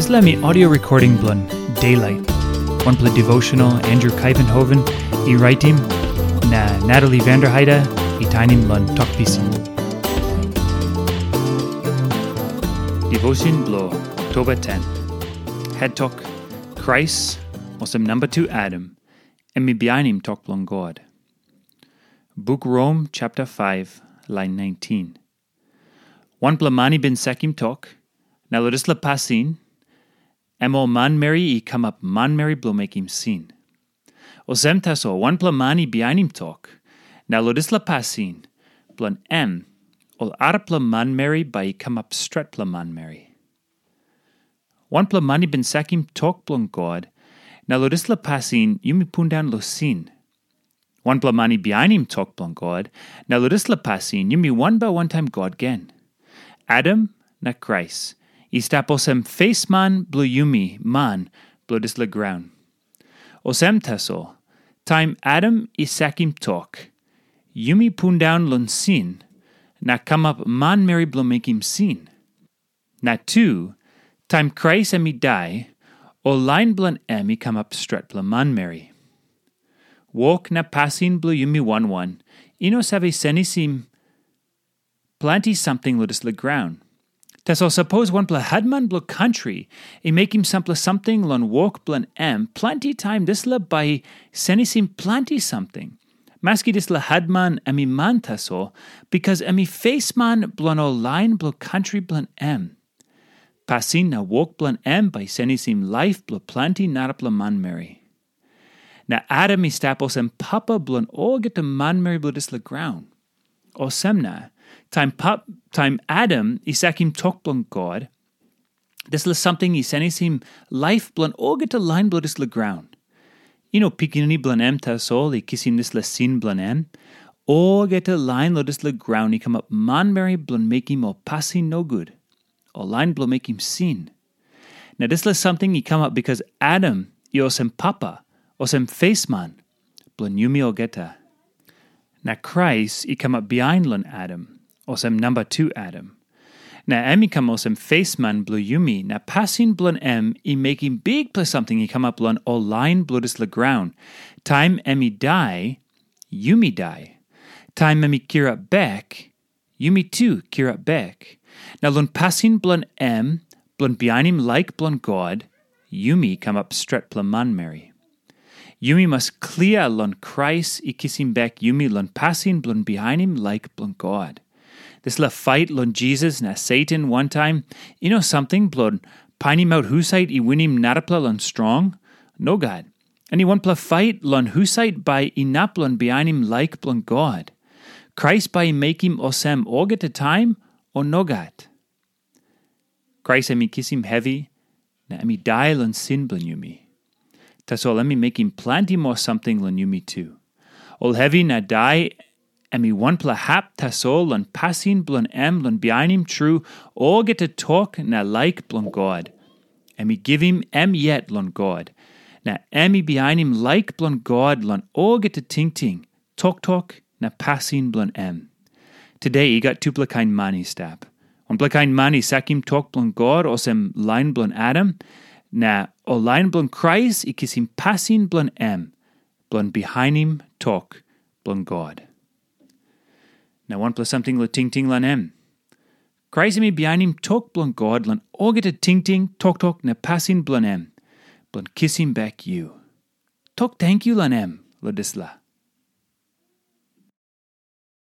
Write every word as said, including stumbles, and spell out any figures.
Dispela em i audio recording bilong Daylight, wanpela devotional Andrew Kaivenhoven i raitim, na Natalie Vanderheide i tainim long Tok Pisin. Devotion bilong Oktoba ten. Head Tok: Krais, olsem namba tu Adam, em i bihainim tok bilong God. Buk Rom chapter five, lain nineteen. Wanpela man i bin sakim tok, na long dispela pasin, em ol manmeri i kamap manmeri bilong mekim sin. Olsem tasol, wanpela man i bihainim tok, na long dispela pasin, bilong em, ol arapela manmeri bai i kamap stretpela manmeri. Wanpela man i bin sakim tok bilong God, na long dispela pasin yumi pundaun long sin. Wanpela man i bihainim tok bilong God, na long dispela pasin yumi wanbel wantaim God gen. Adam na Krais i stap olsem fesman bilong yumi man bilong dispela graun. Olsem tasol, taim Adam i sakim tok, yumi pundaun long sin na kamap manmeri bilong mekim sin. Na tu, taim Krais em i dai, ol lain bilong em i kamap stretpela manmeri. Wok na pasin bilong yumi wan wan i no save senisim planti samting long dispela graun. Tasol sapos wanpela hetman bilong kantri i mekim sampela samting long wok bilong em, planti taim dispela bai i senisim planti samting. Maski dispela hetman em i man tasol, bikas em i fesman bilong ol lain bilong kantri bilong em. Pasin na wok bilong em bai i senisim laip bilong planti narapela manmeri. Na Adam i stap olsem papa bilong olgeta manmeri bilong dispela graun. Olsem na, taim, pap, taim Adam i sakim tok bilong God, dispela samting i senisim laip bilong olgeta lain bilong dispela graun. I no pikinini bilong em tasol i kisim dispela sin bilong em. Olgeta lain long dispela graun i kamap manmeri bilong mekim ol pasin nogut, ol lain bilong mekim sin. Na dispela samting i kamap bikas Adam i olsem papa, olsem fesman bilong yumi olgeta. Na Krais i kamap bihain long Adam, olsem namba tu Adam. Na em i kam olsem fesman bilong yumi, na pasin bilong em i mekim bikpela samting i kamap long ol lain bilong dispela graun. Taim em i dai, yumi dai. Taim em i kirap bek, yumi tu kirap bek. Na long pasin bilong em, bilong bihainim laik bilong God, yumi kamap stretpela manmeri. Yumi mas klia long Krais i kisim bek yumi long pasin bilong bihainim laik bilong God. Dispela fait long Jisas na Satan wantaim, i no samting bilong painimaut husat i winim narapela long strong. Nogat. Em i wanpela fait long husat bai inap long bihainim laik bilong God. Krais bai i mekim olsem olgeta taim, o nogat? Krais em i kisim hevi, na em i dai long sin bilong yumi. Tasol em i mekim planti moa samting long yumi tu. Ol hevi na dai, em i wanpela hap tasol long pasin bilong em long bihainim tru olgeta tok na laik bilong God. Em i givim em yet long God, na em i bihainim laik bilong God long olgeta tingting, toktok, na pasin bilong em. Tude i gat tupela kain man i stap. Wanpela kain man i sakim tok bilong God olsem lain bilong Adam, na ol lain bilong Krais i kisim pasin bilong em, bilong bihainim tok bilong God. Na wanpela samting long tingting long em. Krais em i bihainim tok bilong God long olgeta tingting, toktok, na pasin bilong em, bilong kisim bek yu. Tok tenkyu long em long dispela.